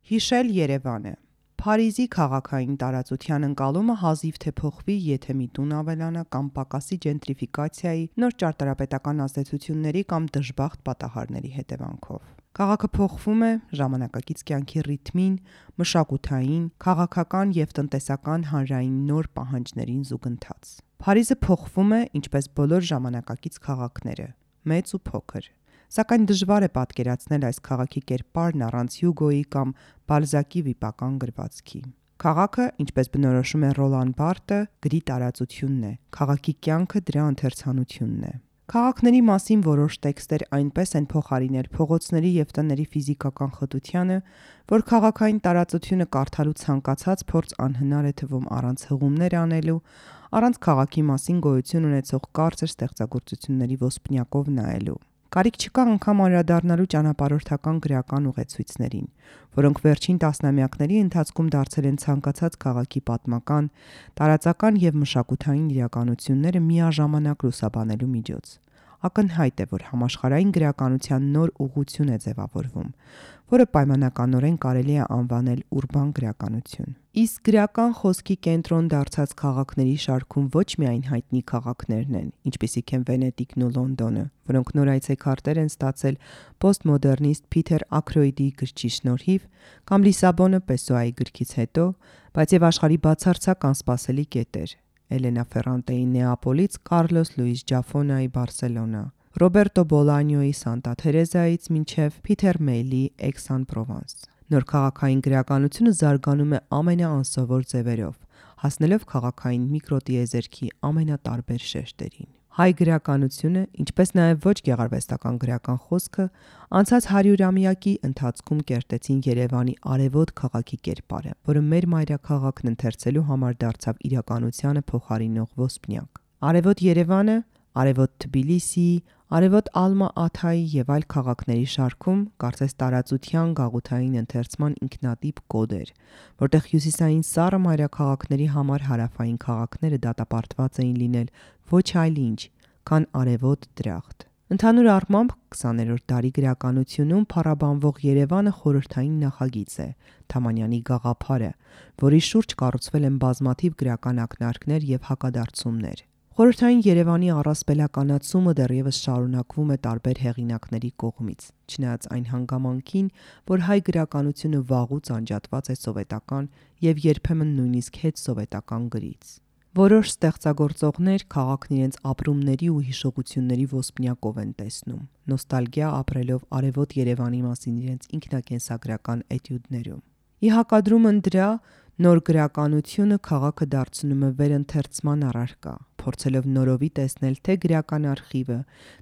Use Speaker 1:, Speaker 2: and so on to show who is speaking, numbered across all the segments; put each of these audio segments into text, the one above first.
Speaker 1: Հիշել Երևանը։ Փարիզի քաղաքային տարածության ընկալումը հազիվ թե փոխվի, եթե մի տուն ավելանա կամ պակասի ջենտրիֆիկացիայի, նոր ճարտարապետական ազդեցությունների կամ դժբախտ պատահարների հետևանքով։ Քաղաքը փոխվում է ժամանակակից կյանքի ռիթմին, մշակութային, քաղաքական և տնտեսական հանրային նոր պահանջներին զուգընթաց։ Փարիզը փոխվում է, ինչպես բոլոր ժամանակակից քաղաքները, մեծ ու փոքր։ Սակայն դժվար է պատկերացնել այս քաղաքի կերպարն առանց Հյուգոյի կամ Բալզակի վիպական գրվածքի։ Քաղաքը, ինչպես բնորոշում է Ռոլան Բարթը, գրի տարածությունն է, քաղաքի կյանքը դրա ընթերցանությունն է։ Քաղաքների մասին որոշ տեքստեր այնպես են փոխարինել փողոցների և տների ֆիզիկական խտությանը, որ քաղաքային տարածությունը կարդալու ցանկացած փորձ անհնար է թվում առանց հղումներ անելու, առանց քաղաքի մասին գոյություն ունեցող կարճ ստեղծագործությունների ոսպնյակով նայելու։ Կարիք չկա անգամ անդրադառնալու ճանապարհորդական գրական ուղեցույցներին, որոնք վերջին տասնամյակների ընթացքում դարձել են ցանկացած քաղաքի պատմական, տարածական և մշակութային իրականությունները միաժամանակ լուսաբանելու միջոց։ Ակնհայտ է, որ համաշխարհային գրականության նոր ուղղություն է ձևավորվում, որը պայմանականորեն կարելի է անվանել ուրբան գրականություն։ Իսկ գրական խոսքի կենտրոն դարձած քաղաքների շարքում ոչ միայն հայտնի քաղաքներն են, ինչպիսիք են Վենետիկն ու Լոնդոնը, որոնք նոր այցեքարտեր են ստացել պոստմոդեռնիստ Փիթեր Աքրոյդի գրչի շնորհիվ, կամ Լիսաբոնը Պեսոայի գրքից հետո, բայց և աշխարհի բացարձակ անսպասելի կետեր՝ Էլենա Ֆերրանտեի Նեապոլից Կարլոս Լուիս Ջաֆոնայի Բարսելոնա, Ռոբերտո Բոլանյոյի Սանտա Թերեզայից մինչև Փիթեր Մեյլի Էքս-Ան-Պրովանս։ Նոր քաղաքային գրականությունը զարգանում է ամենաանսովոր ձևերով, հասնելով քաղաքային միկրոտիեզերքի ամենատարբեր շերտերին։ Հայ գրականությունը, ինչպես նաև ոչ գեղարվեստական գրական խոսքը, անցած 100-ամյակի ընթացքում կերտեցին Երևանի արևոտ քաղաքի կերպարը, որը մեր մայրաքաղաքն ընթերցելու համար դարձավ իրականությանը փոխարինող ոսպնյակ։ Արևոտ Երևանը, արևոտ Թբիլիսիի, արևոտ Ալմա-Աթայի և այլ քաղաքների շարքում կարծես տարածության գաղութային ընթերցման ինքնատիպ կոդ էր, որտեղ հյուսիսային սառը մայրաքաղաքների համար հարավային քաղաքները դատապարտված էին լինել ոչ այլ ինչ, քան արևոտ դրախտ։ Ընդհանուր առմամբ 20-րդ դարի գրականությունում փառաբանվող Երևանը խորհրդային նախագիծ է, Թամանյանի գաղափարը, որի շուրջ կառուցվել են բազմաթիվ գրական ակնարկներ և հակադարձումներ։ Խորհրդային Երևանի առասպելականացումը դեռևս շարունակվում է տարբեր հեղինակների կողմից, չնայած այն հանգամանքին, որ հայ գրականությունը վաղուց անջատված է սովետական և երբեմն նույնիսկ հետսովետական գրից։ Որոշ ստեղծագործողներ քաղաքն իրենց ապրումների ու հիշողությունների ոսպնյակով են տեսնում, նոստալգիա ապրելով արևոտ Երևանի մասին իրենց ինքնակենսագրական էտյուդներում։ Ի հակադրումն դրա, նոր գրականությունը քաղաքը դարձնում է վերընթերցման առարկա, փորձելով նորովի տեսնել թե գրական արխիվը,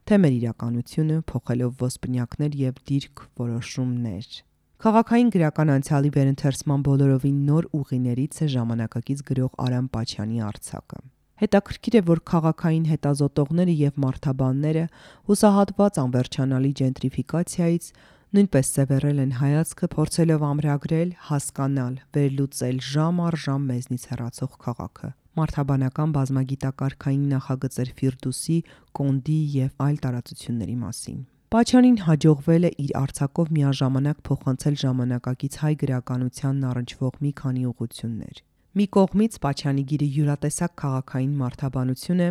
Speaker 1: թե մեր իրականությունը, փոխելով ոսպնյակներ և դիրք որոշումներ։ Քաղաքային գրական անցյալի վերընթերցման բոլորովին նոր ուղիներից է ժամանակակից գրող Արամ Պաչյանի արձակը։ Հետաքրքիր է, որ քաղաքային հետազոտողները և մարդաբանները, հուսահատված անվերջանալի ջենտրիֆիկացիայից, նույնպես սևեռել են հայացքը, փորձելով ամրագրել, հասկանալ, վերլուծել ժամ առ ժամ մեզնից հեռացող քաղաքը։ Մարդաբանական բազմագիտակարգային նախագծեր Ֆիրդուսի, Կոնդի և այլ տարածությունների մասին։ Պաչյանին հաջողվել է իր արձակով միաժամանակ փոխանցել ժամանակակից հայ գրականությանն առնչվող մի քանի ուղղություններ։ Մի կողմից Պաչյանի գիրը յուրատեսակ քաղաքային մարդաբանություն է,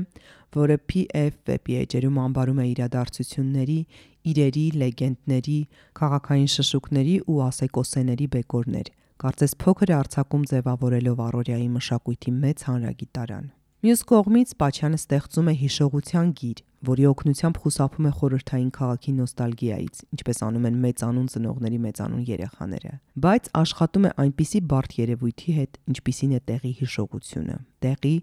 Speaker 1: որը PF վեպի էջերում անվանում է իրադարձությունների, իրերի, լեգենդների, քաղաքային շշուկների ու ասեկոսեների բեկորներ, կարծես փոքր արձակում ձևավորելով առօրյայի մշակույթի մեծ հանրագիտարան։ Մյուս կողմից Պաչյանը ստեղծում է հիշողության գիր, որի օգնությամբ խուսափում է խորհրդային քաղաքի նոստալգիայից, ինչպես անում են մեծանուն ծնողների մեծանուն երեխաները, բայց աշխատում է այնպիսի բարդ երևույթի հետ, ինչպիսին է տեղի հիշողությունը, տեղի,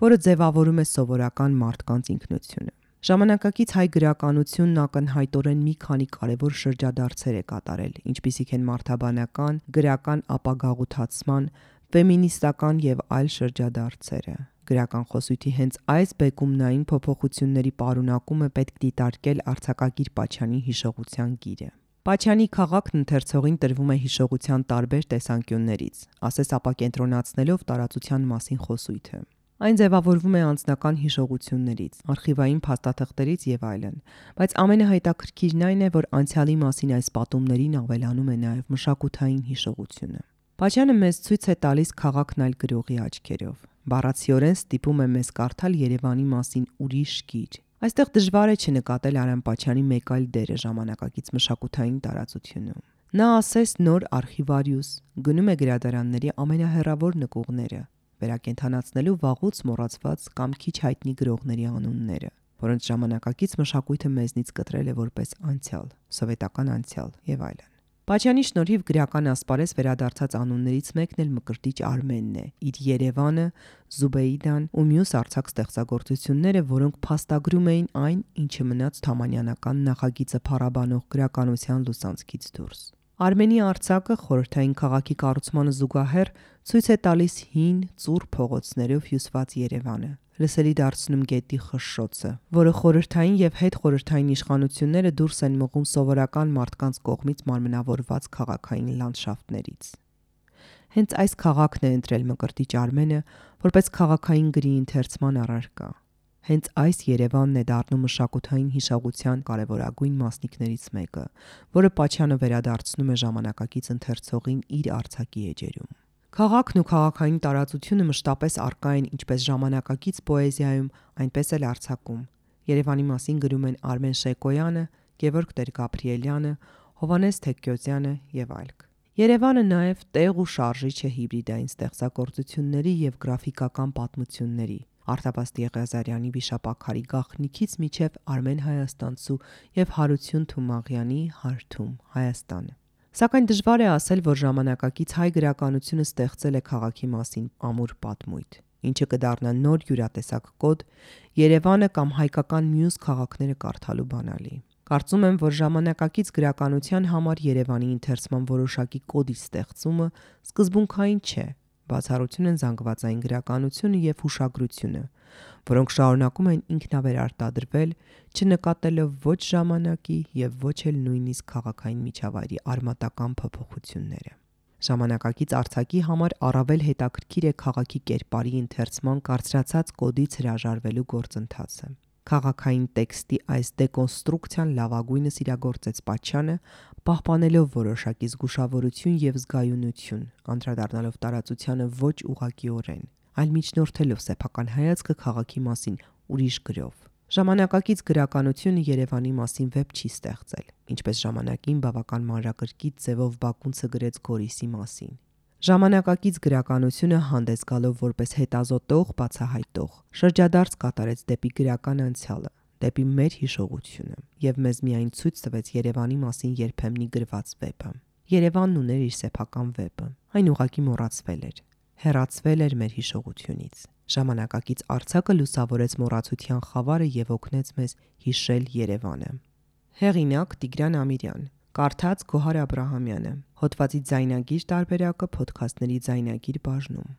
Speaker 1: որը ձևավորում է սովորական մարդկանց ինքնությունը։ Ժամանակակից հայ գրականությունն ակնհայտորեն մի քանի կարևոր շրջադարձեր է կատարել, ինչպիսիք են մարդաբանական, գրական ապագաղութացման, ֆեմինիստական և այլ շրջադարձերը։ Գրական խոսույթի հենց այս բեկումնային փոփոխությունների պարունակում է պետք դիտարկել արձակագիր Պաչյանի հիշողության գիրը։ Պաչյանի քաղաքն ընթերցողին տրվում է հիշողության տարբեր տեսանկյուններից, ասես ապակենտրոնացնելով տարածության մասին խոսույթը։ Այն ձևավորվում է անձնական հիշողություններից, արխիվային փաստաթղթերից եւ այլն, բայց ամենահետաքրքիրն այն է, որ անցյալի մասին այս պատումներին ավելանում է նաեւ մշակութային հիշողությունը։ Պաչյանը մեզ ցույց է տալիս քաղաքն այլ գրողի աչքերով։ Բառացիորեն ստիպում է մեզ կարդալ Երևանի մասին ուրիշ գիր։ Այստեղ դժվար է չնկատել Արամ Պաչյանի մեկ այլ դերը ժամանակակից մշակութային տարածությունում։ Նա ասես նոր արխիվարիուս գնում է գրադարանների ամենահեռավոր նկուղները, վերակենդանացնելու վաղուց մոռացված կամ քիչ հայտնի գրողների անունները, որոնց ժամանակակից մշակույթը մեզնից կտրել է որպես անցյալ, սովետական անցյալ եւ այլն։ Պաչյանի շնորհիվ գրական ասպարեզ վերադարձած անուններից մեկն էլ Մկրտիչ Արմենն է, իր Երևանը, Զուբեիդան ու մյուս արձակ ստեղծագործությունները, որոնք փաստագրում էին այն, ինչը մնաց թամանյանական նախագիծը փառաբանող գրականության լուսանցքից դուրս։ Արմենի արձակը խորհրդային քաղաքի կառուցմանը զուգահեռ ցույց է տալիս հին, ծուռ փողոցներով հյուսված Երևանը, լսելի դարձնում գետի խշշոցը, որը խորհրդային եւ հետխորհրդային իշխանությունները դուրս են մղում սովորական մարդկանց կողմից մարմնավորված քաղաքային լանդշաֆտներից։ Հենց այս քաղաքն է ընտրել Մկրտիչ Արմենը որպես քաղաքային գրի ընթերցման առարկա։ Հենց այս Երևանն է դառնում մշակութային հիշողության կարևորագույն մասնիկներից մեկը, որը Պաչյանը վերադարձնում է ժամանակակից ընթերցողին իր արձակի էջերում։ Քաղաքն ու քաղաքային տարածությունը մշտապես առկա են ինչպես ժամանակակից պոեզիայում, այնպես էլ արձակում։ Երևանի մասին գրում են Արմեն Շեկոյանը, Գևորգ Տեր-Գաբրիելյանը, Հովհաննես Թեքկյոզյանը եւ այլք։ Երևանը նաև տեղ ու շարժիչ է հիբրիդային ստեղծագործությունների եւ գրաֆիկական պատմությունների։ Արտավազդ Եղիազարյանի վիշապաքարի գաղտնիքից միջև Արմեն Հայաստանցու եւ Հարություն Թումաղյանի Հարթում Հայաստանը։ Սակայն դժվար է ասել, որ ժամանակակից հայ գրականությունը ստեղծել է քաղաքի մասին ամուր պատմույթ, ինչը կդառնա նոր յուրատեսակ կոդ Երևանը կամ հայկական մյուս քաղաքները կարդալու բանալի։ Կարծում եմ, որ ժամանակակից գրականության համար Երևանի ընթերցման որոշակի կոդի ստեղծումը սկզբունքային չէ, բացառություն են զանգվածային գրականությունը եւ հուշագրությունը, որոնք շարունակում են ինքնավերարտադրվել, չնկատելով ոչ ժամանակի եւ ոչ էլ նույնիսկ քաղաքային միջավայրի արմատական փոփոխությունները։ Ժամանակակից արձակի համար առավել հետաքրքիր է քաղաքի կերպարի ընթերցման կարծրացած կոդից հրաժարվելու գործընթացը։ Քաղաքային տեքստի այս դեկոնստրուկցիան լավագույնս իրագործեց Պաչյանը, պահպանելով որոշակի զգուշավորություն եւ զգայունություն, անդրադառնալով տարածությանը ոչ ուղղակիորեն, այլ միջնորդելով սեփական հայացքը քաղաքի մասին ուրիշ գրով։ Ժամանակակից գրականությունը Երևանի մասին վեպ չի ստեղծել, ինչպես ժամանակին բավական մանրակրկիտ ձևով Բակունցը գրեց Գորիսի մասին։ Ժամանակակից գրականությունը հանդես գալով որպես հետազոտող, բացահայտող, շրջադարձ կատարեց դեպի գրական անցյալը, դեպի մեր հիշողությունը եւ մեզ միայն ցույց տվեց Երևանի մասին երբեմնի գրված վեպը։ Երևանն ուներ իր սեփական վեպը, այն ուղղակի մոռացվել էր, հեռացվել էր մեր հիշողությունից։ Ժամանակակից արձակը լուսավորեց մոռացության խավարը եւ օգնեց մեզ հիշել Երևանը։ Հեղինակ Տիգրան Ամիրյան, կարդաց Գոհար Աբրահամյանը, հոդվածի ձայնագիր տարբերակը Փոդքասթների ձայնագիր բաժնում։